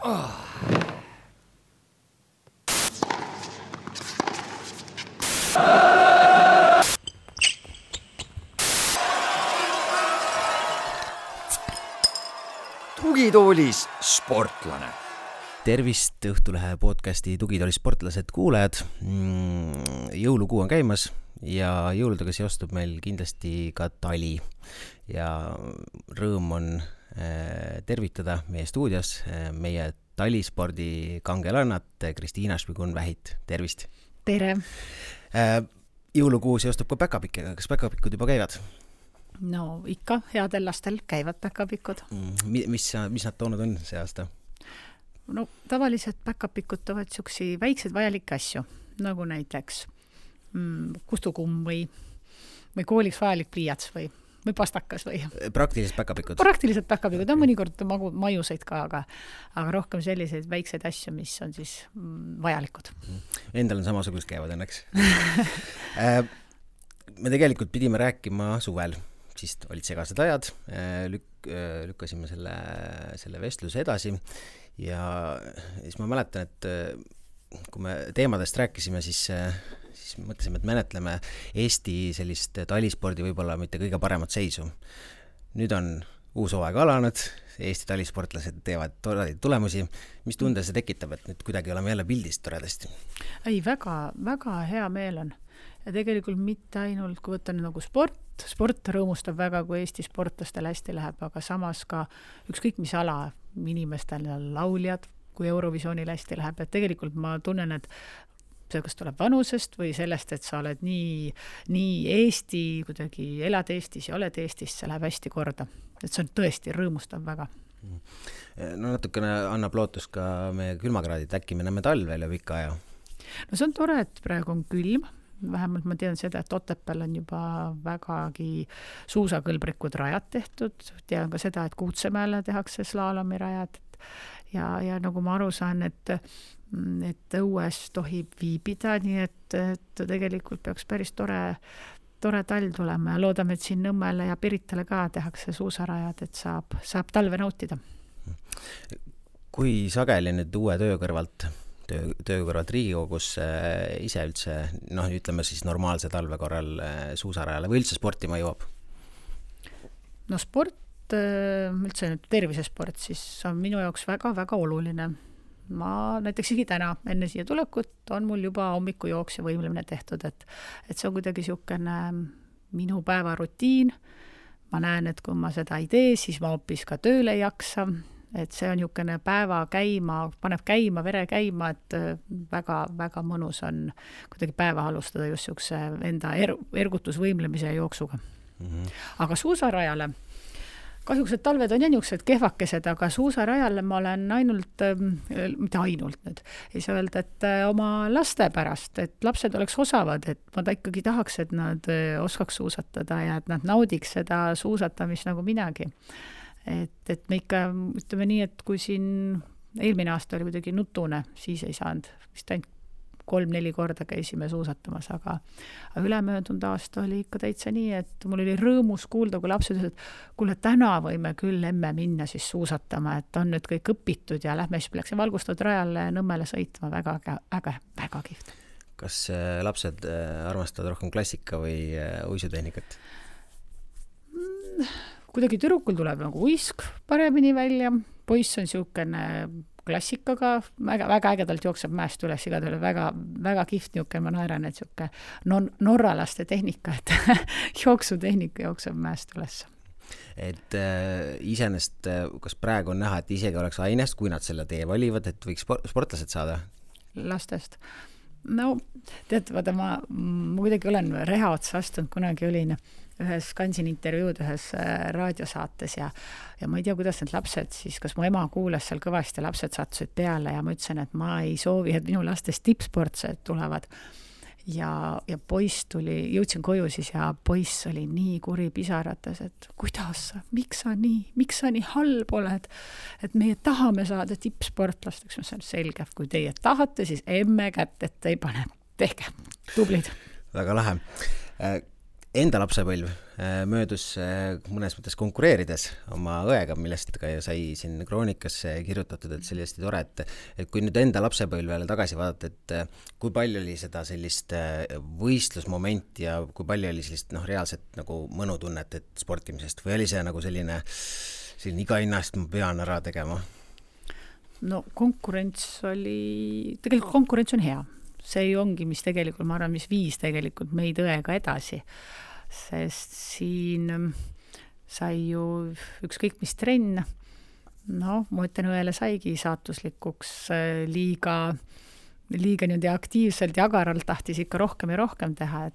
Tugitoolis sportlane. Tervist Õhtulehe podcasti Tugitoolis sportlased kuulajad. Jõulukuu on käimas ja jõuludega seostub meil kindlasti ka tali. Ja rõõm on tervitada meie stuudios meie talispordi kangelannat Kristiina Šmigun-Vähit. Tervist! Tere! Jõulukuu seostub ka päkapikkega. Kas päkapikud juba käivad? No ikka, headel lastel käivad päkapikud. Mis nad toonud on see aasta? No tavaliselt päkapikud toovad siuksi väikseid vajalikke asju, nagu näiteks kustukumm või kooliks vajalik pliiats või pastakas või. Praktilised päkapikud? Praktilised päkapikud, on mõnikord majuseid ka, aga rohkem selliseid väikseid asju, mis on siis vajalikud. Endal on samasugust käivad õnneks. Me tegelikult pidime rääkima suvel, siis olid segased ajad, lükkasime selle vestluse edasi ja siis ma mäletan, et kui me teemadest rääkisime, siis mõtlesime, et menetleme Eesti sellist talispordi võib-olla mitte kõige paremat seisu. Nüüd on uus hooaeg alanud, Eesti talisportlased teevad toredaid tulemusi. Mis tunde see tekitab, et nüüd kuidagi oleme jälle pildist toredasti? Ei, väga hea meel on. Ja tegelikult mitte ainult, kui võtta nagu sport rõõmustab väga, kui Eesti sportlastel hästi läheb, aga samas ka ükskõik mis ala inimestel lauljad, kui Eurovisioonil hästi läheb. Et tegelikult ma tunnen, et see kas tuleb vanusest või sellest, et sa oled nii Eesti, kuidagi elad Eestis ja oled Eestis, see läheb hästi korda. Et see on tõesti rõõmustab väga. No natukene annab lootus ka meie külmakraadid, äkki me näeme talvel ja pika aja? No see on tore, et praegu on külm. Vähemalt ma tean seda, et Otepääl on juba vägagi suusakõlbrikud rajad tehtud. Tean ka seda, et Kuutsemäele tehakse slaalomirajad. Ja nagu ma aru saan, et õues tohib viibida, nii et tegelikult peaks päris tore talv tulema ja loodame, et siin Nõmmele ja Piritale ka tehakse suusarajad, et saab talve nautida. Kui sageli nüüd uue töö kõrvalt Riigikogus ise üldse, ütleme siis normaalse talve korral suusarajale või üldse sportima jõuab? No sport, üldse tervisesport, siis on minu jaoks väga-väga oluline. Ma näiteks täna enne siia tulekut on mul juba hommikujooks ja võimlemine tehtud, et see on kuidagi siukene minu päevarutiin. Ma näen, et kui ma seda ei tee, siis ma hoopis ka tööle ei jaksa. Et see on niisugune päeva käima, paneb käima, vere käima, et väga mõnus on kuidagi päeva alustada just niisuguse enda ergutusvõimlemise ja jooksuga. Aga suusarajale, kahjuks et talved on niisugused kehvakesed, aga suusarajale ma olen mitte ainult nüüd, ei saa öelda, et oma laste pärast, et lapsed oleks osavad, et ma ikkagi tahaks, et nad oskaks suusatada ja et nad naudiks seda suusatamist nagu minagi. Et me ikka ütleme nii, et kui siin eelmine aasta oli kuidagi nutune, siis ei saanud. Vist ainult 3-4 korda käisime suusatamas, aga ülemöödunud aasta oli ikka täitsa nii, et mul oli rõõmus kuulda, kui lapsed ütlesid, et kuule, täna võime küll emme minna siis suusatama, et on nüüd kõik õpitud ja lähme siis läksin valgustatud rajale Nõmmele sõitma, väga äge, väga kihvt. Kas lapsed armastavad rohkem klassika või uisutehnikat? Kuidagi tüdrukul tuleb nagu uisk paremini välja, poiss on siukene klassikaga, väga ägedalt jookseb mäest üles, igal väga kihvt niuke, ma naeran, et siuke norralaste tehnika, et jooksutehnika jookseb mäest üles. Et iseenest, kas praegu on näha, et isegi oleks ainest, kui nad selle tee valivad, et võiks sportlased saada? Lastest. No, tead, vaata, ma kuidagi olen reha otsa astunud, kunagi olin ühes Kansin intervjuud ühes raadiosaates ja ma ei tea, kuidas need lapsed siis, kas mu ema kuulas seal kõvasti, lapsed sattusid peale ja ma ütlesin, et ma ei soovi, et minu lastest tippsportsed tulevad. Ja poiss jõudsin koju siis ja poiss oli nii kuri pisarates, et kuidas sa, miks sa nii halb oled, et meie tahame saada tippsportlasteks, mis on selge, kui teie tahate, siis emme kätt, et ei pane, tehke, tublid. Väga lahe. enda lapsepõlv möödus mõnes mõttes konkureerides oma õega, millest ka sai siin kroonikasse kirjutatud, et see oli hästi tore, et kui nüüd enda lapsepõlvele tagasi vaadata, et kui palju oli seda sellist võistlusmomenti ja kui palju oli sellist reaalset nagu mõnutunnet sportimisest või oli see nagu selline iga hinnast ma pean ära tegema? No konkurents on hea. See ongi, mis tegelikult, ma arvan, mis viis tegelikult meid õega edasi. Sest siin sai ju ükskõik mis trenn, ma ütlen, õele saigi saatuslikuks liiga niimoodi aktiivselt ja agaralt tahtis ikka rohkem ja rohkem teha,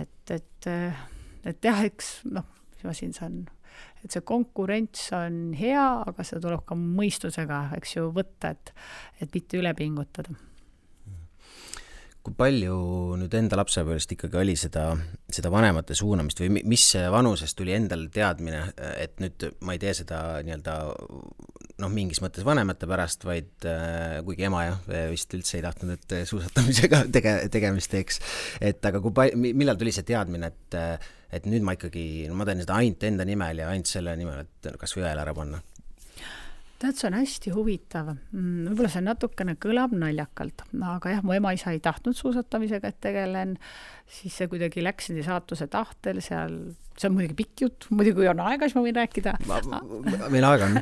et jah, eks, mis ma siin saan, et see konkurents on hea, aga seda tuleb ka mõistusega, eks ju, võtta, et mitte üle pingutada. Kui palju nüüd enda lapsepõlvest ikkagi oli seda vanemate suunamist või mis vanusest tuli endal teadmine, et nüüd ma ei tee seda mingis mõttes vanemate pärast, vaid kuigi ema vist üldse ei tahtnud, et suusatamisega tegemist teeks. Aga millal tuli see teadmine, et nüüd ma ikkagi, ma teen seda ainult enda nimel ja ainult selle nimel, et kas või õele ära panna? See on hästi huvitav. Võib-olla see natukene kõlab naljakalt, aga jah, mu ema-isa ei tahtnud suusatamisega, et tegelen, siis see kuidagi läks saatuse tahtel, see on muidugi pikk jutt, muidugi kui on aega, siis ma võin rääkida. Meil aega on.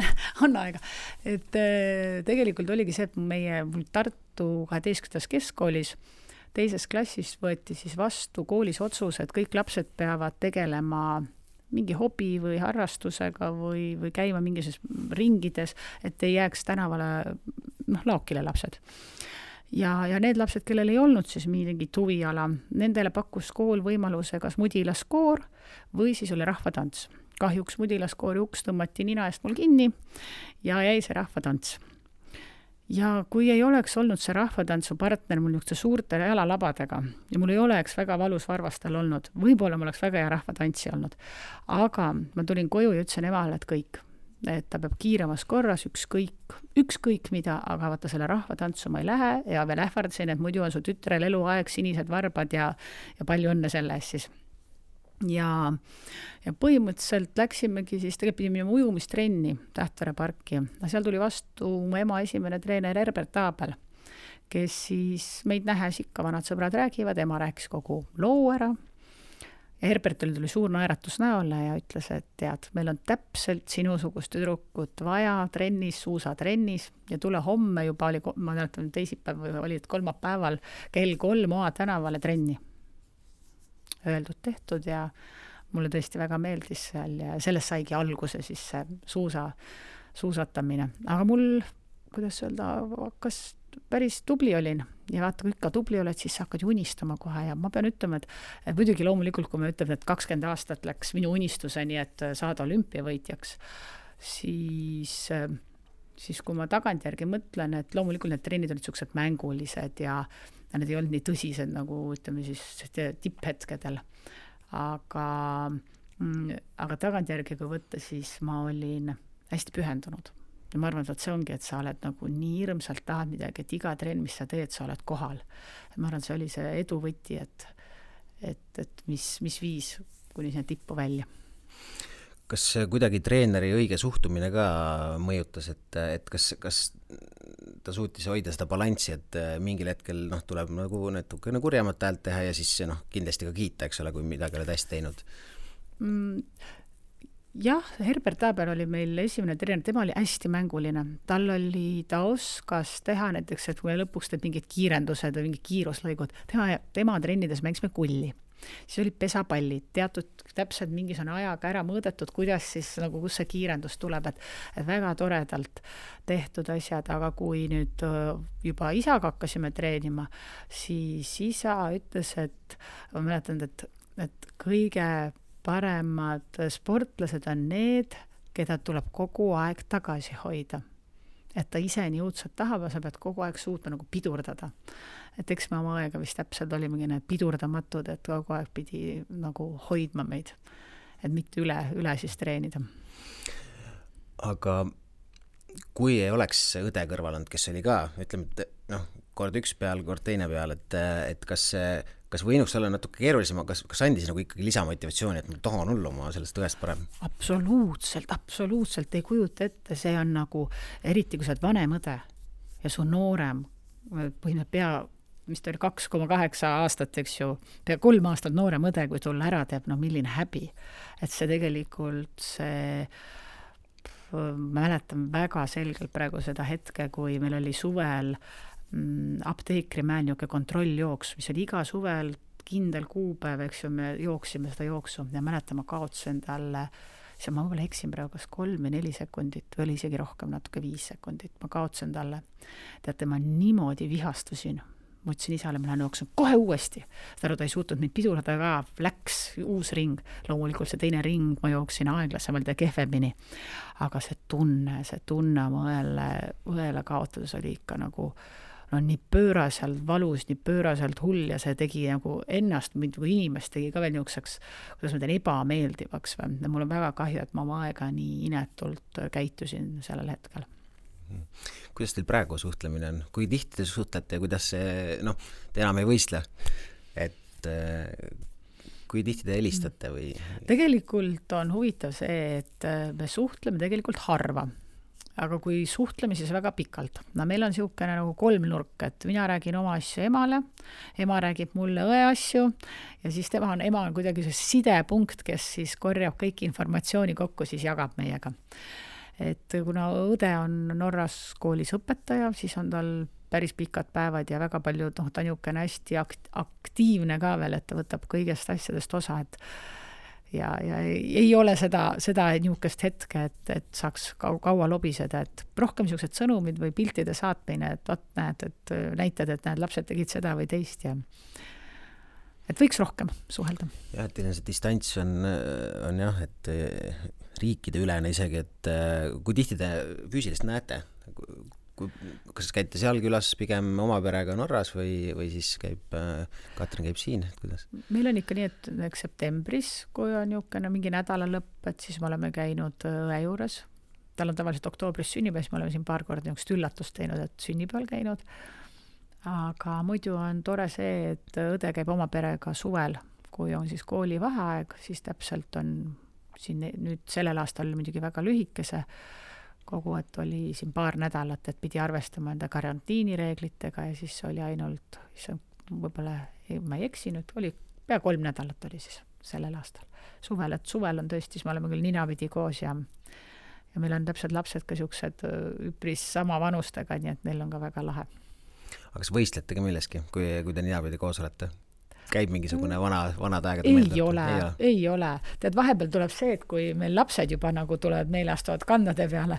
On aega. Et tegelikult oligi see, et mul Tartu 12. keskkoolis teises klassis võeti siis vastu koolis otsus, et kõik lapsed peavad tegelema mingi hobi või harrastusega või käima mingis ringides, et ei jääks tänavale laokile lapsed. Ja need lapsed, kellel ei olnud siis mingit huviala, nendele pakkus kool võimaluse kas mudilaskoor või siis oli rahvatants. Kahjuks mudilaskoori uks tõmmati nina eest mul kinni ja jäi see rahvatants. Ja kui ei oleks olnud see rahvatantsu partner mul niisuguse suurte jalalabadega ja mul ei oleks väga valus varvastel olnud, võib-olla mul oleks väga hea rahvatantsi olnud, aga ma tulin koju ja ütlesin emale, et kõik, et ta peab kiiremas korras, ükskõik mida, aga vaata selle rahvatantsu ma ei lähe ja veel ähvardasin, et muidu on su tütrel eluaeg sinised varbad ja palju õnne selle eest siis. Ja põhimõtteliselt läksimegi siis, tegelikult pidime minema ujumistrenni Tähtvere parki. Seal tuli vastu mu ema esimene treener Herbert Aabel, kes siis meid nähes ikka vanad sõbrad räägivad, ema rääkis kogu loo ära. Herbertil tuli suur naeratus näole ja ütles, et tead, meil on täpselt sinusugust tüdrukut vaja trennis, suusatrennis ja tule homme juba oli, ma teatan teisipäev või oli kolmapäeval kell 3 Oa tänavale trenni. Öeldud tehtud ja mulle tõesti väga meeldis seal ja sellest saigi alguse siis see suusatamine. Aga mul, kuidas öelda, hakkas päris tubli olin ja vaata, kui ikka tubli oled, siis sa hakkad unistama kohe ja ma pean ütlema, et muidugi loomulikult, kui ma ütlen, et 20 aastat läks minu unistuseni, et saada olümpiavõitjaks, siis kui ma tagantjärgi mõtlen, et loomulikult need trennid olid sellised mängulised ja need ei olnud nii tõsised nagu ütleme siis tipphetkedel. Aga tagantjärgi kui võtta, siis ma olin hästi pühendunud. Ja ma arvan, et see ongi, et sa oled nagu nii hirmsalt tahad midagi, et iga trenn, mis sa teed, sa oled kohal. Ja ma arvan, see oli see edu võti, et mis viis kuni sinna tippu välja. Kas kuidagi treeneri õige suhtumine ka mõjutas, et kas ta suutis hoida seda balanssi, et mingil hetkel tuleb nagu natukene kurjemat häält teha ja siis kindlasti ka kiita, eks ole, kui midagi oled hästi teinud? Jah, Herbert Aabel oli meil esimene treener, tema oli hästi mänguline. Ta oskas teha näiteks, et kui lõpuks teeb mingid kiirendused või mingid kiiruslõigud, tema trennides mängisime kulli. Siis olid pesapallid, teatud täpselt mingisugune ajaga ära mõõdetud, kuidas siis nagu kus see kiirendus tuleb, et väga toredalt tehtud asjad, aga kui nüüd juba isaga hakkasime treenima, siis isa ütles, et ma mäletan, et kõige paremad sportlased on need, keda tuleb kogu aeg tagasi hoida. Et ta ise nii õudselt tahab ja sa pead kogu aeg suutma nagu pidurdada. Et eks me oma aega vist täpselt olimegi need pidurdamatud, et kogu aeg pidi nagu hoidma meid, et mitte üle siis treenida. Aga kui ei oleks õde kõrval olnud, kes oli ka, ütleme, et kord üks peal, kord teine peal, et kas kas võinuks olla natuke keerulisem, kas andis nagu ikkagi lisamotivatsiooni, et ma tahan olla oma sellest õest parem? Absoluutselt ei kujuta ette, see on nagu, eriti kui sa oled vanem õde ja su noorem, mis ta oli 2,8 aastat, eks ju, pea 3 aastat noorem õde, kui tulla ära teeb, no milline häbi. Et see tegelikult ma mäletan väga selgelt praegu seda hetke, kui meil oli suvel apteekrimäel niisugune kontrolljooks, mis oli iga suvel kindel kuupäev, eks ju, me jooksime seda jooksu ja mäletan, ma kaotsin talle, ma võib-olla eksin praegu kas 3 või 4 sekundit või oli isegi rohkem, natuke 5 sekundit, ma kaotsin talle. Teate, ma niimoodi vihastusin. Ma ütlesin isale, ma lähen jooksun kohe uuesti. Ta ei suutnud mind pidurada ka, läks uus ring. Loomulikult see teine ring, ma jooksin aeglasemalt ja kehvemini. Aga see tunne oma õele kaotades oli ikka nagu nii pööraselt valus, nii pööraselt hull ja see tegi nagu ennast, kui inimest tegi ka veel niisuguseks, kuidas ma teen, ebameeldivaks. Mul on väga kahju, et ma oma aega nii inetult käitusin sellel hetkel. Kuidas teil praegu suhtlemine on? Kui tihti te suhtlete ja kuidas see, te enam ei võistle, et kui tihti te helistate või? Tegelikult on huvitav see, et me suhtleme tegelikult harva, aga kui suhtleme, siis väga pikalt. Meil on niisugune nagu 3 nurk, et mina räägin oma asju emale, ema räägib mulle õe asju ja siis ema on kuidagi see sidepunkt, kes siis korjab kõik informatsiooni kokku, siis jagab meiega. Et kuna õde on Norras koolis õpetaja, siis on tal päris pikad päevad ja väga palju, ta on niisugune hästi aktiivne ka veel, et ta võtab kõigest asjadest osa, et ja ei ole seda niisugust hetke, et saaks kaua lobiseda, et rohkem niisugused sõnumid või piltide saatmine, et näitad, et lapsed tegid seda või teist ja et võiks rohkem suhelda. Ja, et see distants on jah, et riikide ülene isegi, et kui tihti te füüsilist näete? Kas käite seal külas pigem oma perega Norras või siis Katrin käib siin? Kuidas? Meil on ikka nii, et septembris, kui on niisugune mingi nädala lõpp, et siis me oleme käinud õe juures. Tal on tavaliselt oktoobris sünnipäev, siis me oleme siin paar korda niisugust üllatust teinud, et sünnipäeval käinud. Aga muidu on tore see, et õde käib oma perega suvel, kui on siis kooli vaheaeg, siis täpselt on siin nüüd sellel aastal muidugi väga lühikese kogu, et oli siin paar nädalat, et pidi arvestama enda karantiinireeglitega ja siis oli ainult, võib-olla ma ei eksinud, oli pea 3 nädalat oli siis sellel aastal suvel, et suvel on tõesti, siis me oleme küll ninapidi koos ja meil on täpselt lapsed ka niisugused üpris sama vanustega, nii et neil on ka väga lahe. Aga kas võistlete ka milleski, kui te ninapidi koos olete? Käib mingisugune vanad aegade meeldab? Ei ole. Tead, vahepeal tuleb see, et kui meil lapsed juba nagu tulevad 4 astuvad kandade peale,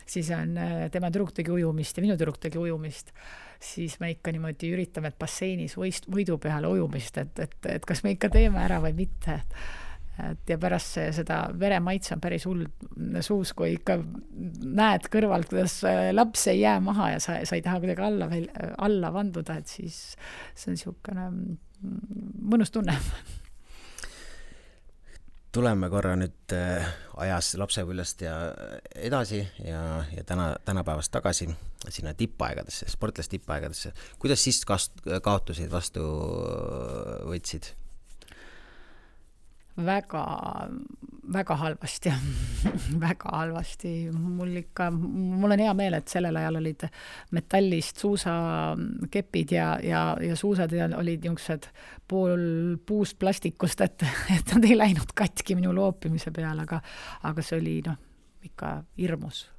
siis on tema tüdruk tegi ujumist ja minu tüdruk tegi ujumist, siis me ikka niimoodi üritame, et basseinis võidu peale ujumist, et kas me ikka teeme ära või mitte. Ja pärast seda veremaitse on päris hull suus, kui ikka näed kõrvalt, kuidas laps ei jää maha ja sa ei taha kuidagi alla vanduda, et siis see on niisugune mõnus tunne. Tuleme korra nüüd ajas lapsepõlvest ja edasi ja tänapäevast tagasi sinna tippaegadesse, sportlast tippaegadesse. Kuidas siis kaotusid vastu võtsid? Väga halvasti. Väga halvasti. Mul on hea meel, et sellel ajal olid metallist suusakepid ja suusad olid niisugused pool puust plastikust, et nad ei läinud katki minu loopimise peale, aga see oli ikka hirmus.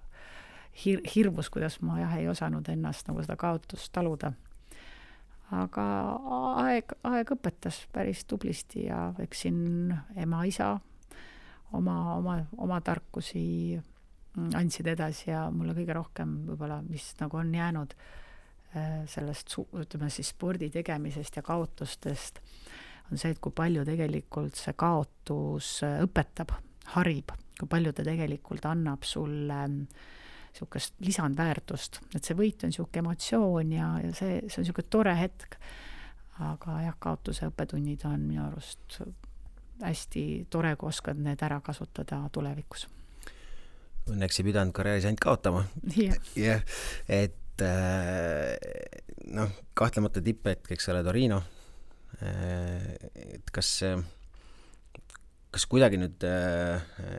Hirmus, kuidas ma ei osanud ennast nagu seda kaotust taluda. Aga aeg õpetas päris tublisti ja eksin ema, isa oma tarkusi andsid edasi ja mulle kõige rohkem võib-olla, mis nagu on jäänud sellest, ütleme siis spordi tegemisest ja kaotustest, on see, et kui palju tegelikult see kaotus õpetab, harib, kui palju ta tegelikult annab sulle niisugust lisandväärtust, et see võit on niisugune emotsioon ja see on niisugune tore hetk, aga jah, kaotuse õppetunnid on minu arust hästi tore, kui oskad need ära kasutada tulevikus. Õnneks ei pidanud karjääris ainult kaotama. Yeah. Et kahtlemata tipphetk, eks ole, Torino, et kas kuidagi nüüd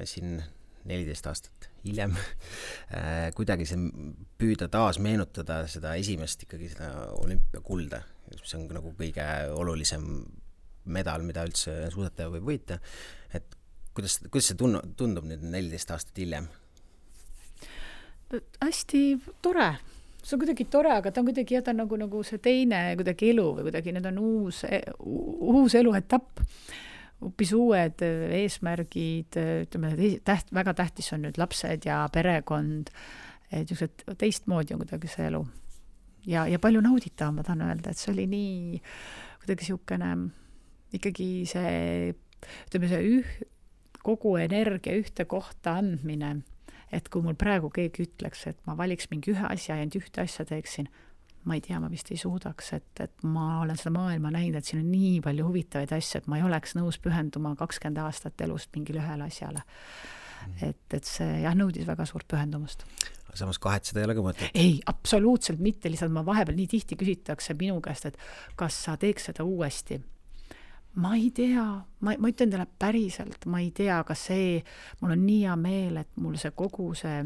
siin 14 aastat hiljem kuidagi see püüda taas meenutada seda esimest ikkagi seda olümpiakulda, mis on nagu kõige olulisem medal, mida üldse suusataja võib võita, et kuidas see tundub nüüd 14 aastat hiljem? Hästi tore. See on kuidagi tore, aga ta on kuidagi jätta nagu see teine kuidagi elu või kuidagi need on uus eluetapp. Hoopis uued eesmärgid, ütleme, väga tähtis on nüüd lapsed ja perekond, et teistmoodi on kuidagi see elu. Ja palju nauditav, ma tahan öelda, et see oli nii kuidagi siukene, ikkagi see, ütleme, see kogu energia ühte kohta andmine, et kui mul praegu keegi ütleks, et ma valiks mingi ühe asja ja ühte asja teeksin, ma ei tea, ma vist ei suudaks, et ma olen seda maailma näinud, et siin on nii palju huvitavaid asju, et ma ei oleks nõus pühenduma 20 aastat elust mingile ühele asjale. Et see nõudis väga suurt pühendumust. Samas kahetseda ei ole ka mõtet? Ei, absoluutselt mitte, lihtsalt ma vahepeal nii tihti küsitakse minu käest, et kas sa teeks seda uuesti. Ma ei tea, ma ütlen teile päriselt, ma ei tea, kas mul on nii hea meel, et mul see kogu see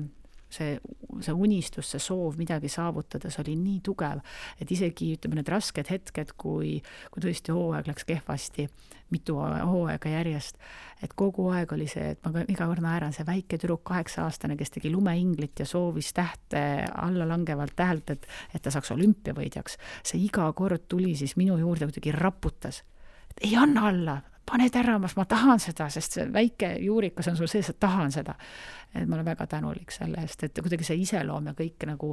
unistus, see soov midagi saavutada, see oli nii tugev, et isegi ütleme need rasked hetked, kui tõesti hooaeg läks kehvasti, mitu hooaega järjest, et kogu aeg oli see, et ma iga kord naeran, see väike tüdruk 8-aastane, kes tegi lumeinglit ja soovis tähte alla langevalt tähelt, et ta saaks olümpiavõidjaks, see iga kord tuli siis minu juurde kuidagi raputas, et ei anna alla, pane teramas, ma tahan seda, sest see väike juurikas on sul sees, et tahan seda. Et ma olen väga tänulik selle eest, et kuidagi see iseloom ja kõik nagu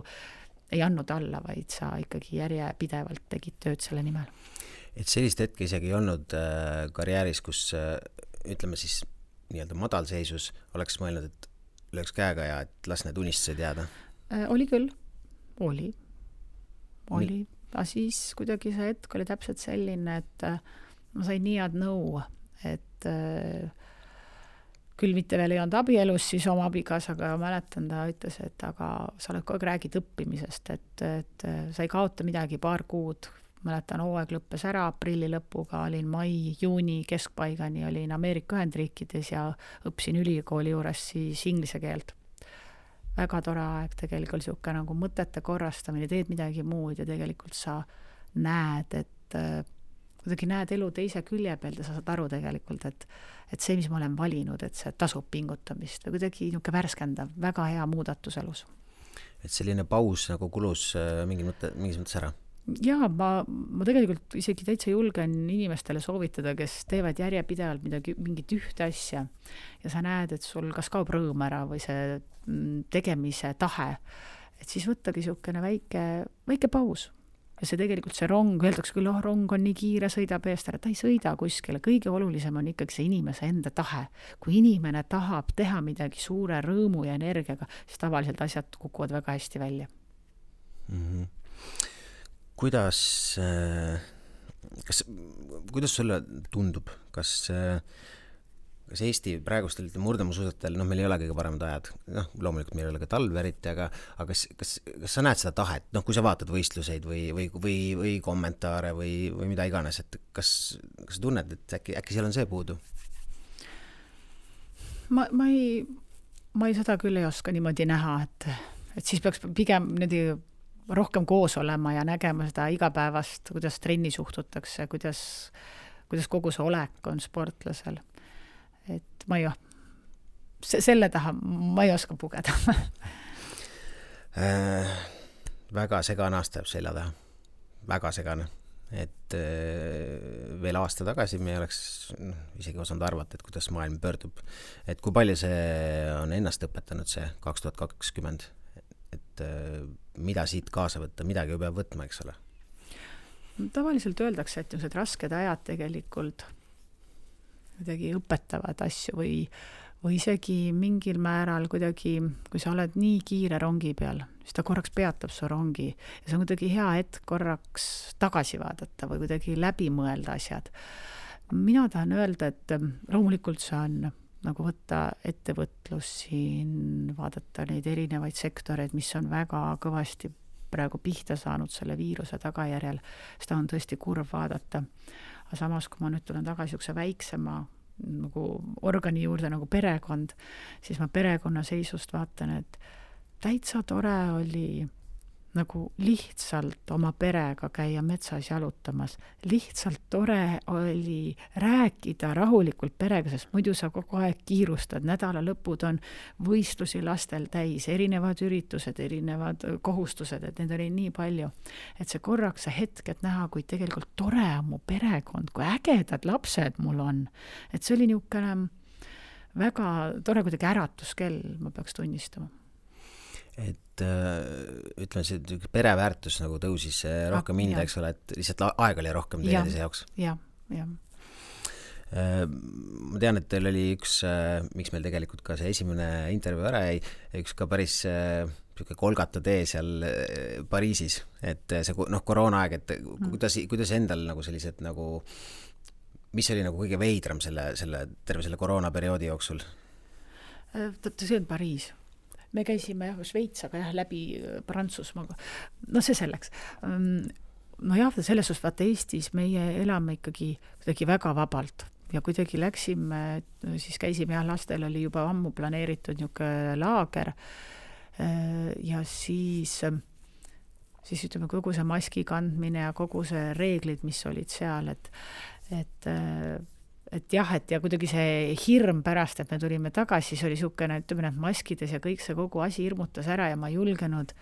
ei andnud alla, vaid sa ikkagi järjepidevalt tegid tööd selle nimel. Et sellist hetke isegi ei olnud karjääris, kus ütleme siis nii-öelda madalseisus oleks mõelnud, et lööks käega ja et las need unistused jääda? Oli küll, oli. Aga siis kuidagi see hetk oli täpselt selline, et ma sain nii head nõu, et küll mitte veel ei olnud abielus siis oma abigas, aga mäletan, ta ütles, et aga sa oled kogu aeg räägid õppimisest, et sa ei kaota midagi, paar kuud. Mäletan, hooaeg lõppes ära, aprilli lõpuga olin mai-juuni keskpaigani, olin Ameerika Ühendriikides ja õppisin ülikooli juures siis inglise keelt. Väga tore aeg, tegelikult siuke nagu mõtete korrastamine, teed midagi muud ja tegelikult sa näed, et kuidagi näed elu teise külje pealt ja sa saad aru tegelikult, et see, mis ma olen valinud, et see tasub pingutamist või kuidagi niuke värskendav, väga hea muudatus elus. Et selline paus nagu kulus mingis mõttes ära? Jaa, ma tegelikult isegi täitsa julgen inimestele soovitada, kes teevad järjepidevalt mingit ühte asja ja sa näed, et sul kas kaob rõõm ära või see tegemise tahe, et siis võttagi siukene väike paus. Ja see tegelikult see rong, öeldaks küll, rong on nii kiire, sõidab eest ära, ta ei sõida kuskile. Kõige olulisem on ikkagi see inimese enda tahe. Kui inimene tahab teha midagi suure rõõmu ja energiaga, siis tavaliselt asjad kukuvad väga hästi välja. Mm-hmm. Kuidas sulle tundub, kas Eesti praegustel murdemusuusatajatel, meil ei ole kõige paremad ajad, loomulikult meil ei ole ka talv eriti, aga kas sa näed seda tahet, kui sa vaatad võistluseid või kommentaare või mida iganes, et kas sa tunned, et äkki seal on see puudu? Ma ei seda küll ei oska niimoodi näha, et siis peaks pigem rohkem koos olema ja nägema seda igapäevast, kuidas trenni suhtutakse, kuidas kogu see olek on sportlasel. Et ma ei selle taha ma ei oska pugeda. Väga segane aasta jääb selja taha. Väga segane. Et veel aasta tagasi me oleks isegi osanud arvata, et kuidas maailm pöördub. Et kui palju see on ennast õpetanud see 2020, et mida siit kaasa võtta, midagi ju peab võtma, eks ole? Tavaliselt öeldakse, et need rasked ajad tegelikult kuidagi õpetavad asju või isegi mingil määral kuidagi, kui sa oled nii kiire rongi peal, siis ta korraks peatab su rongi ja see on kuidagi hea hetk korraks tagasi vaadata või kuidagi läbi mõelda asjad. Mina tahan öelda, et loomulikult see on nagu võtta ettevõtlus siin, vaadata neid erinevaid sektoreid, mis on väga kõvasti praegu pihta saanud selle viiruse tagajärjel, seda on tõesti kurv vaadata. aga samas, kui ma nüüd tulen tagasi niisuguse väiksema nagu organi juurde nagu perekond, siis ma perekonna seisust vaatan, et täitsa tore oli nagu lihtsalt oma perega käia metsas jalutamas. Lihtsalt tore oli rääkida rahulikult perega, sest muidu sa kogu aeg kiirustad. Nädala lõpud on võistlusi lastel täis, erinevad üritused, erinevad kohustused, et need oli nii palju. Et see korraks, see hetk, et näha, kui tegelikult tore on mu perekond, kui ägedad lapsed mul on. Et see oli niisugune väga tore kuidagi äratuskell, ma peaks tunnistama. Et ütleme, see pereväärtus nagu tõusis rohkem hinda, eks ole, et lihtsalt aeg oli rohkem teineteise jaoks. Ja. Ma tean, et teil oli üks, miks meil tegelikult ka see esimene intervjuu ära jäi, üks ka päris kolgata tee seal Pariisis, et see koroonaaeg, et kuidas endal nagu sellised nagu, mis oli nagu kõige veidram terve selle koroonaperioodi jooksul? See on Pariis. Me käisime Šveits, aga läbi Prantsusmaaga. No see selleks. Selles suhtes vaata Eestis meie elame ikkagi väga vabalt ja kuidagi läksime, siis käisime lastel oli juba ammu planeeritud niisugune laager ja siis ütleme kogu see maski kandmine ja kogu see reeglid, mis olid seal, et kuidagi see hirm pärast, et me tulime tagasi, siis oli niisugune, ütleme, et maskides ja kõik see kogu asi hirmutas ära ja ma julgenud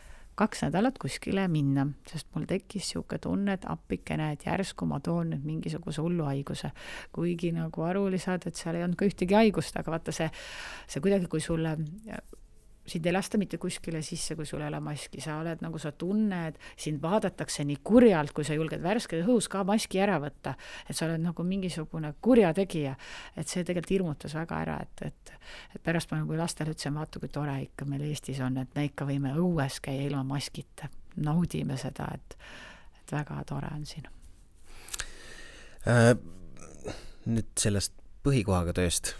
2 nädalat kuskile minna, sest mul tekkis niisugune tunne, et appikene, et järsku ma toon nüüd mingisuguse hullu haiguse. Kuigi nagu aru oli saada, et seal ei olnud ka ühtegi haigust, aga vaata see kuidagi, kui sulle sind ei lasta mitte kuskile sisse, kui sul ei ole maski, sa oled nagu sa tunned, sind vaadatakse nii kurjalt, kui sa julged värske õhus ka maski ära võtta, et sa oled nagu mingisugune kurjategija, et see tegelikult hirmutas väga ära, et pärast ma nagu lastele ütlesin, vaata kui tore ikka meil Eestis on, et me ikka võime õues käia ilma maskita, naudime seda, et väga tore on siin. Nüüd sellest põhikohaga tööst,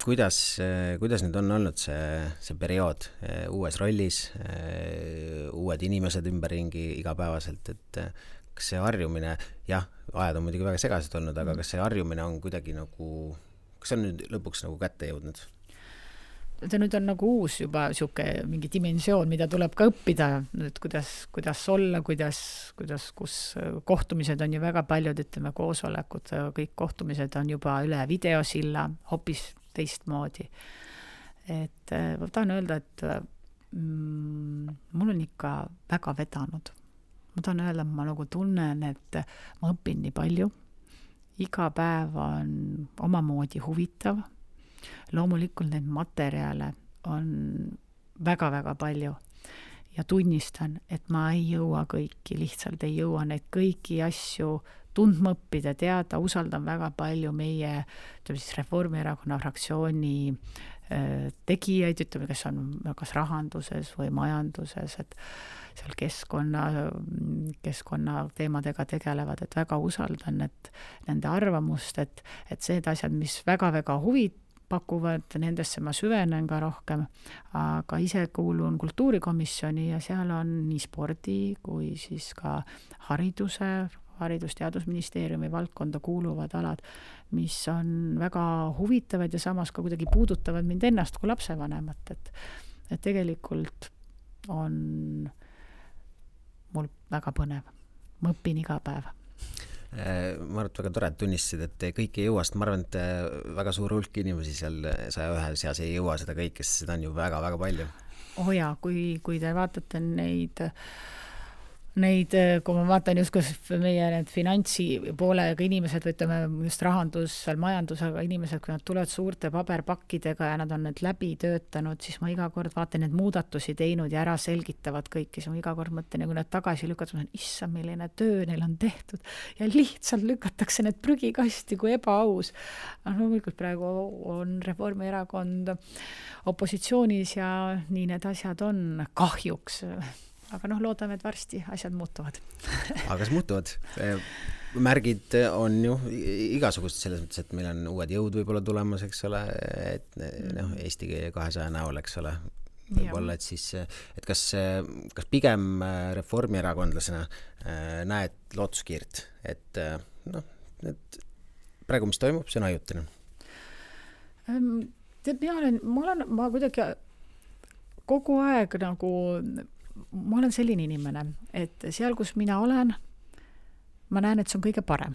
kuidas nüüd on olnud see periood uues rollis, uued inimesed ümberringi igapäevaselt, et kas see harjumine, ajad on muidugi väga segased olnud, aga kas see harjumine on kuidagi nagu, kas on nüüd lõpuks nagu kätte jõudnud? See nüüd on nagu uus juba siuke mingi dimensioon, mida tuleb ka õppida, nüüd kuidas olla, kus kohtumised on ju väga paljud, ütleme koosolekud, kõik kohtumised on juba üle videosilla, hoopis teistmoodi. Et ma tahan öelda, et mul on ikka väga vedanud. Ma tahan öelda, ma nagu tunnen, et ma õpin nii palju. Iga päev on omamoodi huvitav. Loomulikult need materjale on väga-väga palju. Ja tunnistan, et ma ei jõua kõiki, lihtsalt ei jõua neid kõiki asju tundma õppida, teada, usaldan väga palju meie Reformierakonna fraktsiooni tegijaid, ütleme, kes on kas rahanduses või majanduses, et seal keskkonna teemadega tegelevad, et väga usaldan, et nende arvamust, et need asjad, mis väga-väga huvit pakuvad, nendesse ma süvenen ka rohkem, aga ise kuulun kultuurikomisjoni ja seal on nii spordi kui siis ka Haridus-Teadusministeeriumi valdkonda kuuluvad alad, mis on väga huvitavad ja samas ka kuidagi puudutavad mind ennast kui lapsevanemat, et tegelikult on mul väga põnev. Ma õpin iga päev. Ma arvan, et väga tore, et tunnistasid, et kõik ei jõua, sest ma arvan, et väga suur hulk inimesi seal 101 seas ei jõua seda kõike, sest seda on ju väga-väga palju. Kui te vaatate neid, kui ma vaatan just meie need finantsi poolega inimesed, või ütleme just rahandus, majandusega inimesed, kui nad tulevad suurte paberpakkidega ja nad on need läbi töötanud, siis ma iga kord vaatan need muudatusi teinud ja ära selgitavad kõiki, siis ma iga kord mõtlen, kui nad tagasi lükkavad, ma olen, issa, milline töö neil on tehtud ja lihtsalt lükatakse need prügikasti kui ebaaus. Loomulikult praegu on Reformierakond opositsioonis ja nii need asjad on kahjuks. Aga loodame, et varsti asjad muutuvad. Aga kas muutuvad? Märgid on ju igasugust selles mõttes, et meil on uued jõud võib-olla tulemas, eks ole, et Eesti 200 näol, eks ole, võib-olla, et siis, et kas pigem reformierakondlasena näed lootuskiirt, et praegu, mis toimub, see on ajutine. Tead, ma kuidagi kogu aeg nagu, ma olen selline inimene, et seal, kus mina olen, ma näen, et see on kõige parem.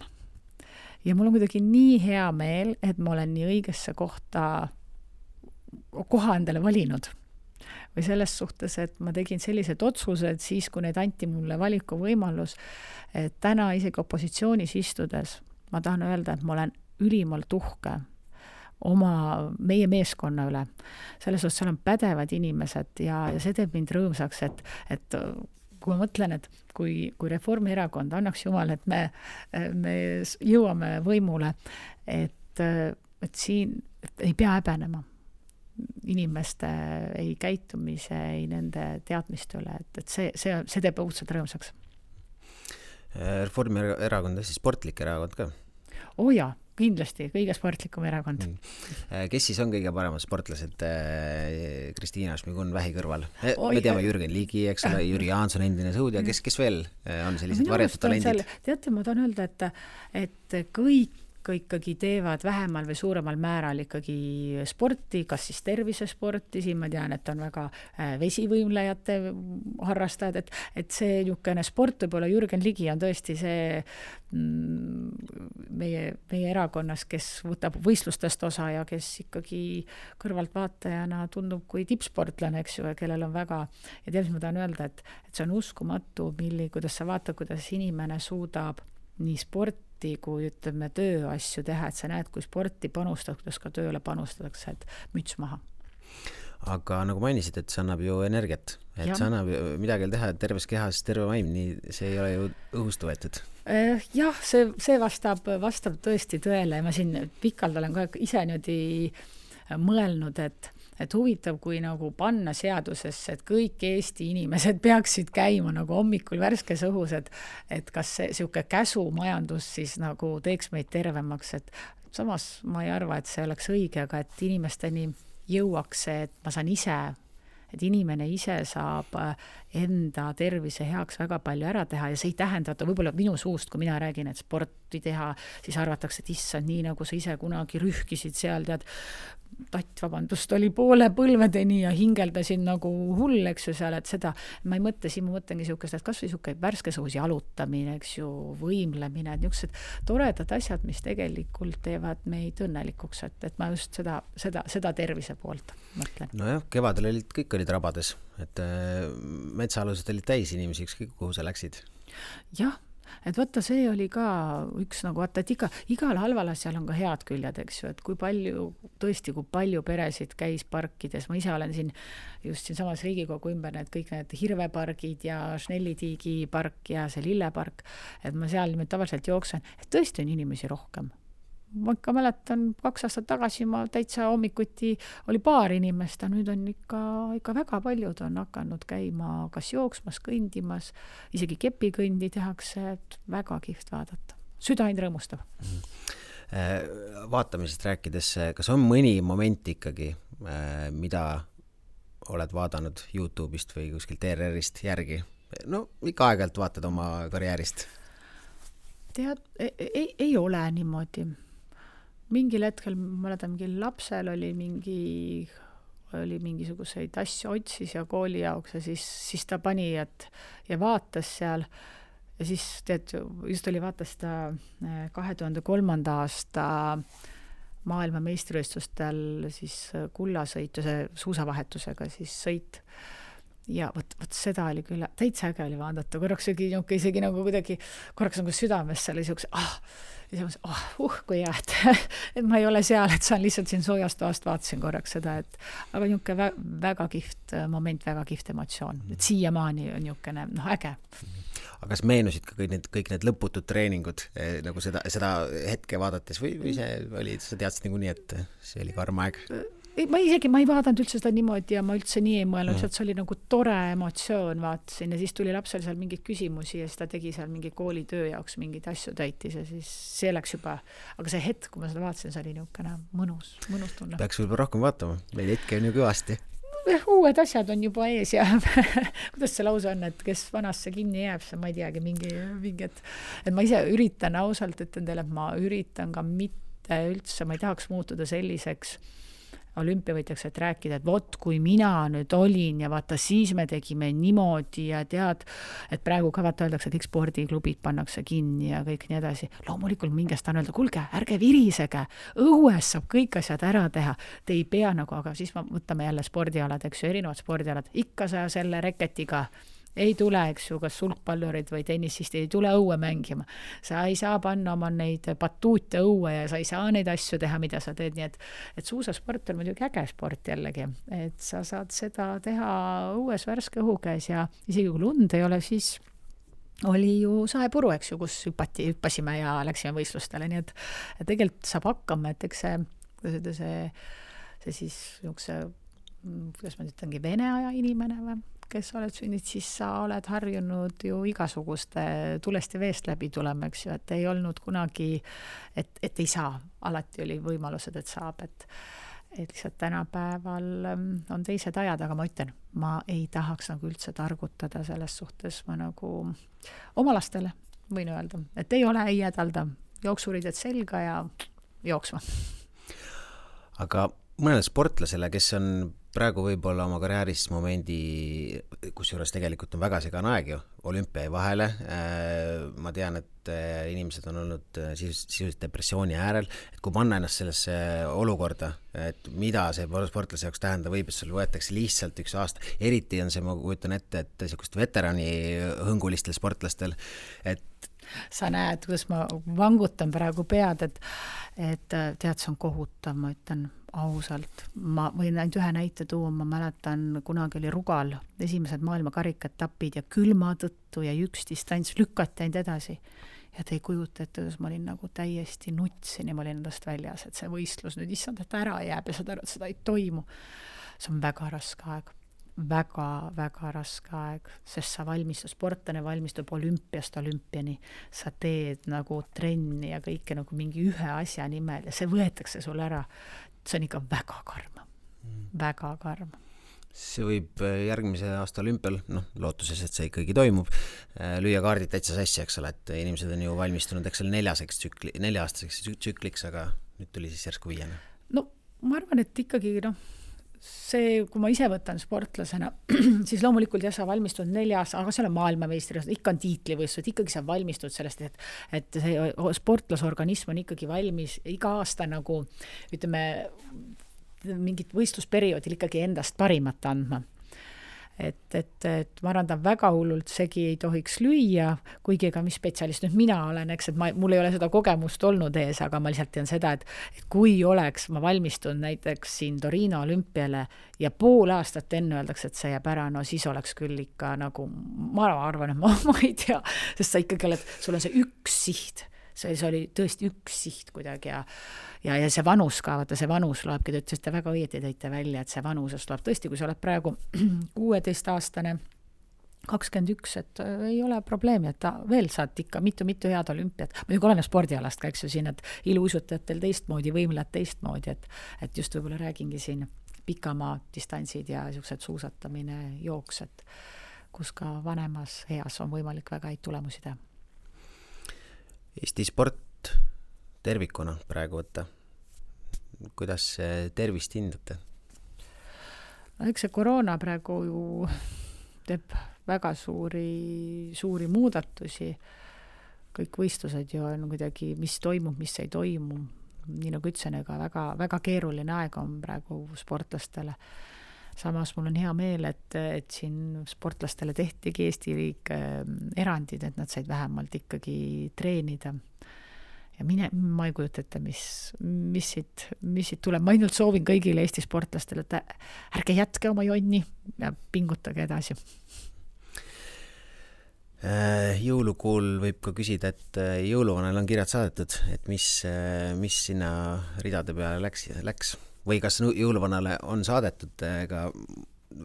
Ja mul on kuidagi nii hea meel, et ma olen nii õigesse koha endale valinud. Või selles suhtes, et ma tegin sellised otsused siis, kui need anti mulle valiku võimalus, et täna isegi opositsioonis istudes ma tahan öelda, et ma olen ülimalt uhke meie meeskonna üle. Selles suhtes seal on pädevad inimesed ja see teeb mind rõõmsaks, et kui ma mõtlen, et kui Reformierakond annaks jumal, et me jõuame võimule, et siin ei pea häbenema inimeste ei käitumise, ei nende teadmiste üle, et see teeb õudselt rõõmsaks. Reformierakond on siis sportlik erakond ka? Jaa, kindlasti, kõige sportlikum erakond. Kes siis on kõige paremad sportlased Kristiina Šmigun vähi kõrval? Me teame Jürgen Ligi, eks ole, Jüri Jaanson, endine sõudja, kes veel on sellised varjatud talendid? Teate, ma tahan öelda, et kõik ikkagi teevad vähemal või suuremal määral ikkagi sporti, kas siis tervisesporti, siin ma tean, et on väga vesivõimlejate harrastajad, et see niisugune sport, võib-olla Jürgen Ligi on tõesti see meie erakonnas, kes võtab võistlustest osa ja kes ikkagi kõrvaltvaatajana tundub kui tippsportlane, eks ju, kellel on väga, ja tead, mis ma tahan öelda, et see on uskumatu, kuidas sa vaatad, kuidas inimene suudab nii sporti kui ütleme tööasju teha, et sa näed, kui sporti panustad, kuidas ka tööle panustatakse, et müts maha. Aga nagu mainisid, et see annab ju energiat, et see annab midagi teha terves kehas, terve vaim, nii see ei ole ju õhust võetud. Jah, see vastab tõesti tõele ja ma siin pikalt olen ka ise niimoodi mõelnud, et huvitav, kui nagu panna seadusesse, et kõik Eesti inimesed peaksid käima nagu hommikul värskes õhus, et kas see sihuke käsumajandus siis nagu teeks meid tervemaks, et samas ma ei arva, et see oleks õige, aga et inimesteni jõuaks see, et ma saan ise, et inimene ise saab enda tervise heaks väga palju ära teha ja see ei tähenda, et võib-olla minu suust, kui mina räägin, et sporti teha, siis arvatakse, et issand, nii nagu sa ise kunagi rühkisid seal, tead, oli poole põlvedeni ja hingeldasin nagu hull, eks ju seal, et seda, ma ei mõtle, siin ma mõtlengi niisugust, et kas või niisugune värskes õhus jalutamine, eks ju, võimlemine, et niisugused toredad asjad, mis tegelikult teevad meid õnnelikuks, et ma just seda tervise poolt mõtlen. Nojah, kevadel kõik olid rabades, et metsaalused olid täis inimesi, ükskõik kuhu sa läksid. Jah, et võtta, see oli ka üks nagu, et igal halval asjal on ka head küljed, eks ju, et kui palju peresid käis parkides, ma ise olen just siin samas Riigikogu ümber kõik need hirvepargid ja Schnellitiigi park ja see lillepark, et ma seal tavaliselt jooksen, et tõesti on inimesi rohkem. Ma ikka mäletan, 2 aastat tagasi ma täitsa hommikuti oli paar inimest, nüüd on ikka väga paljud on hakanud käima kas jooksmas, kõndimas, isegi kepikõndi tehakse, et väga kihvt vaadata. Südain rõõmustab. Vaatamisest rääkides, kas on mõni moment ikkagi, mida oled vaadanud YouTube'ist või kuskilt ERR-ist järgi? No, ikka aeg-ajalt vaatad oma karjäärist. Tead, ei ole niimoodi. Mingil hetkel, ma mäletan, mingil lapsel oli mingisuguseid asju otsis ja kooli jaoks ja siis ta pani ja vaatas seal ja siis just vaatas ta 2003. aasta maailma meistrivõistlustel siis kullasõitu, see suusavahetusega siis sõit. Ja võt seda oli küll, täitsa äge oli vaadata, korraks isegi nagu kuidagi, korraks nagu südames seal oli kui hea, et ma ei ole seal, et saan lihtsalt siin soojast toast vaatasin korraks seda, aga niisugune väga kihvt moment, väga kihvt emotsioon, et siiamaani on niisugune äge. Aga kas meenusid ka kõik need lõputud treeningud nagu seda hetke vaadates või sa teadsid nagu nii, et see oli karm aeg? Ma ei vaadanud üldse seda niimoodi ja ma üldse nii ei mõelnud, et see oli nagu tore emotsioon, vaatasin ja siis tuli lapsel seal mingeid küsimusi ja siis ta tegi seal mingi koolitöö jaoks mingeid asju täitis ja siis see läks juba, aga see hetk, kui ma seda vaatasin, see oli niisugune mõnus tunne. Peaks võib-olla rohkem vaatama, meil hetke on ju kõvasti. uued asjad on juba ees ja kuidas see lause on, et kes vanasse kinni jääb, see ma ei teagi, mingi, et ma ise üritan ausalt, ütlen teile, et ma üritan ka mitte üldse, ma ei tahaks muutuda selliseks olümpiavõitjaks, et rääkida, et vot kui mina nüüd olin ja vaata siis me tegime niimoodi ja tead, et praegu ka vaata öeldakse, kõik spordiklubid pannakse kinni ja kõik nii edasi. Loomulikult mingest on öelda, kuulge, ärge virisege, õues saab kõik asjad ära teha, te ei pea nagu, aga siis võtame jälle spordialad, eks ju, erinevad spordialad, ikka sa selle reketiga ei tule, eks ju, kas sulgpallurid või tennisist ei tule õue mängima. Sa ei saa panna oma neid batuute õue ja sa ei saa neid asju teha, mida sa teed, nii et suusasport on muidugi äge sport jällegi, et sa saad seda teha õues värske õhu käes ja isegi kui lund ei ole, siis oli ju saepuru, eks ju, kus hüppasime ja läksime võistlustele, nii et tegelikult saab hakkama, et eks see siis kuidas ma ütlengi, Vene aja inimene või kes oled sünninud, siis sa oled harjunud ju igasuguste tulest ja veest läbi tulema, eks ju, et ei olnud kunagi, et ei saa. Alati oli võimalused, et saab, et lihtsalt tänapäeval on teised ajad, aga ma ütlen, ma ei tahaks nagu üldse targutada selles suhtes, ma nagu oma lastele võin öelda, et ei ole, ei jädalda, jooksurided selga ja jooksma. Aga mõnele sportlasele, kes on praegu võib-olla oma karjääris momendi, kus juures tegelikult on väga segane aeg ju, olümpia vahele, ma tean, et inimesed on olnud sisuliselt depressiooni äärel, et kui panna ennast sellesse olukorda, et mida see sportlase jaoks tähendab, võib, et sul võetakse lihtsalt üks aasta, eriti on see, ma kujutan ette, et niisugust veterani hõngulistel sportlastel, et sa näed, kuidas ma vangutan praegu pead, et tead, see on kohutav, ma ütlen ausalt. Ma võin ainult ühe näite tuua, ma mäletan, kunagi oli Rugal, esimesed maailmakarikatapid ja külma tõttu ja üks distants lükati ainult edasi. Ja te ei kujuta, et ma olin nagu täiesti nutsin ja ma olin endast väljas, et see võistlus nüüd issand, et ära jääb ja saad aru, et seda ei toimu. See on väga raske aeg. Väga raske aeg, sest sa sportlane valmistub olümpiast olümpiani, sa teed nagu trenni ja kõike nagu mingi ühe asja nimel ja see võetakse sul ära. See on ikka väga karm. See võib järgmise aasta olümpial, lootuses, et see ikkagi toimub, lüüa kaardid täitsa sassi, eks ole, et inimesed on ju valmistunud, eks ole, 4-aastaseks tsükliks, aga nüüd tuli siis järsku 5. No ma arvan, et ikkagi see, kui ma ise võtan sportlasena, siis loomulikult sa valmistud 4 aasta, aga seal on maailmameistrid, ikka on tiitlivõistlused, ikkagi sa valmistud sellest, et see sportlasorganism on ikkagi valmis iga aasta nagu, ütleme, mingit võistlusperioodil ikkagi endast parimat andma. Et ma arvan, ta väga hullult segi ei tohiks lüüa, kuigi ega mis spetsialist nüüd mina olen, eks, et mul ei ole seda kogemust olnud ees, aga ma lihtsalt tean seda, et kui oleks ma valmistun näiteks siin Torino olümpiale ja pool aastat enne öeldakse, et see jääb ära, no siis oleks küll ikka nagu, ma arvan, et ma ei tea, sest sa ikkagi oled, sul on see üks siht, see oli tõesti üks siht kuidagi ja see vanus ka, vaata see vanus loebki, te ütlesite väga õieti tõite välja, et see vanusest loeb tõesti, kui sa oled praegu 16-aastane, 21, et ei ole probleemi, et veel saad ikka mitu head olümpiat. Muidugi oleneb spordialast ka, eks ju siin, et iluuisutajatel teistmoodi, võimlad teistmoodi, et just võib-olla räägingi siin pikamaa distantsid ja niisugused suusatamine, jooks, et kus ka vanemas eas on võimalik väga häid tulemusi teha. Eesti sport tervikuna praegu võtta. Kuidas tervist hindate? Eks see koroona praegu ju teeb väga suuri muudatusi. Kõik võistlused ju on kuidagi, mis toimub, mis ei toimu. Nii nagu ütlesin, ega väga keeruline aeg on praegu sportlastele. Samas mul on hea meel, et siin sportlastele tehtigi Eesti riik erandid, et nad said vähemalt ikkagi treenida. Ja ma ei kujuta ette, mis siit tuleb. Ma ainult soovin kõigile Eesti sportlastele, et ärge jätke oma jonni ja pingutage edasi. Jõulukuul võib ka küsida, et jõuluvanal on kirjad saadetud, et mis sinna ridade peale läks? Või kas jõuluvanale on saadetud ka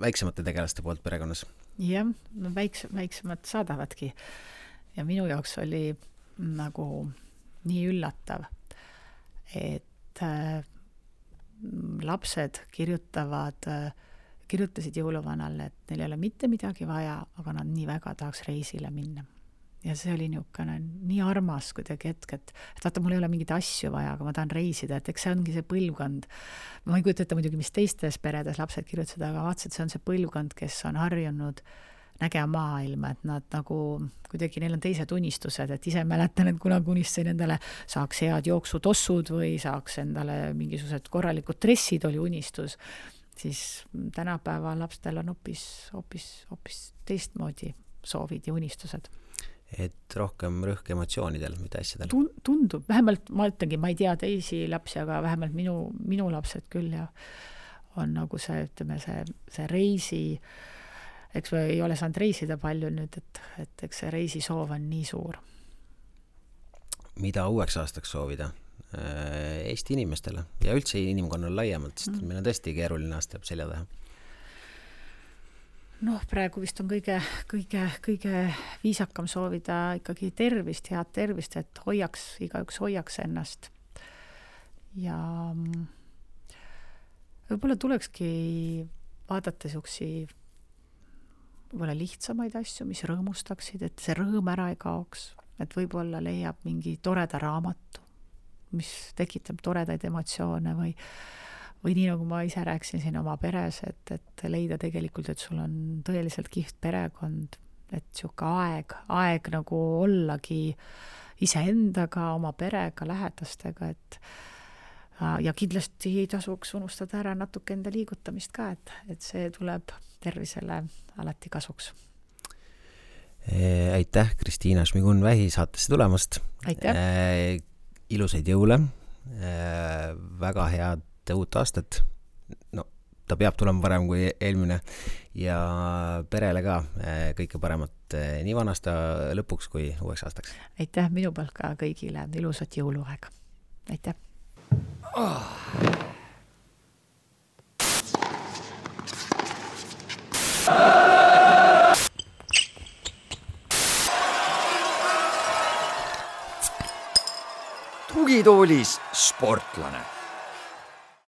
väiksemate tegelaste poolt perekonnas? Jah, no väiksemad saadavadki. Ja minu jaoks oli nagu nii üllatav, et lapsed kirjutavad kirjutasid jõuluvanale, et neil ei ole mitte midagi vaja, aga nad nii väga tahaks reisile minna. Ja see oli niisugune nii armas kuidagi hetk, et vaata, mul ei ole mingeid asju vaja, aga ma tahan reisida, et eks see ongi see põlvkond. Ma ei kujuta ette muidugi, mis teistes peredes lapsed kirjutasid, aga vaatasid, see on see põlvkond, kes on harjunud nägema maailma, et nad nagu kuidagi, neil on teised unistused, et ise mäletan, et kunagi unistasin endale saaks head jooksutossud või saaks endale mingisugused korralikud dressid oli unistus, siis tänapäeva lapstel on hoopis teistmoodi soovid ja unistused. Et rohkem rõhk emotsioonidel, mitte asjadel. Tundub, vähemalt ma ütlengi, ma ei tea teisi lapsi, aga vähemalt minu lapsed küll ja on nagu see, ütleme, see reisi, eks me ei ole saanud reisida palju nüüd, et eks see reisisoov on nii suur. Mida uueks aastaks soovida Eesti inimestele ja üldse inimkonnal laiemalt, sest meil on tõesti keeruline aasta selja taha? Praegu vist on kõige viisakam soovida ikkagi tervist, head tervist, et igaüks hoiaks ennast. Ja võib-olla tulekski vaadata siuksi võib-olla lihtsamaid asju, mis rõõmustaksid, et see rõõm ära ei kaoks, et võib-olla leiab mingi toreda raamatu, mis tekitab toredaid emotsioone või nii nagu ma ise rääkisin siin oma peres, et leida tegelikult, et sul on tõeliselt kihvt perekond, et siuke aeg nagu ollagi iseendaga, oma perega, lähedastega, ja kindlasti ei tasuks unustada ära natuke enda liigutamist ka, et see tuleb tervisele alati kasuks. Aitäh, Kristiina Šmigun-Vähi saatesse tulemast. Aitäh. Ilusaid jõule, väga head uut aastat, ta peab tulema parem kui eelmine ja perele ka kõike paremat nii vanasta lõpuks kui uueks aastaks. Aitäh minu poolt ka kõigile, ilusat jõuluaega. Aitäh. Tugitoolis sportlane.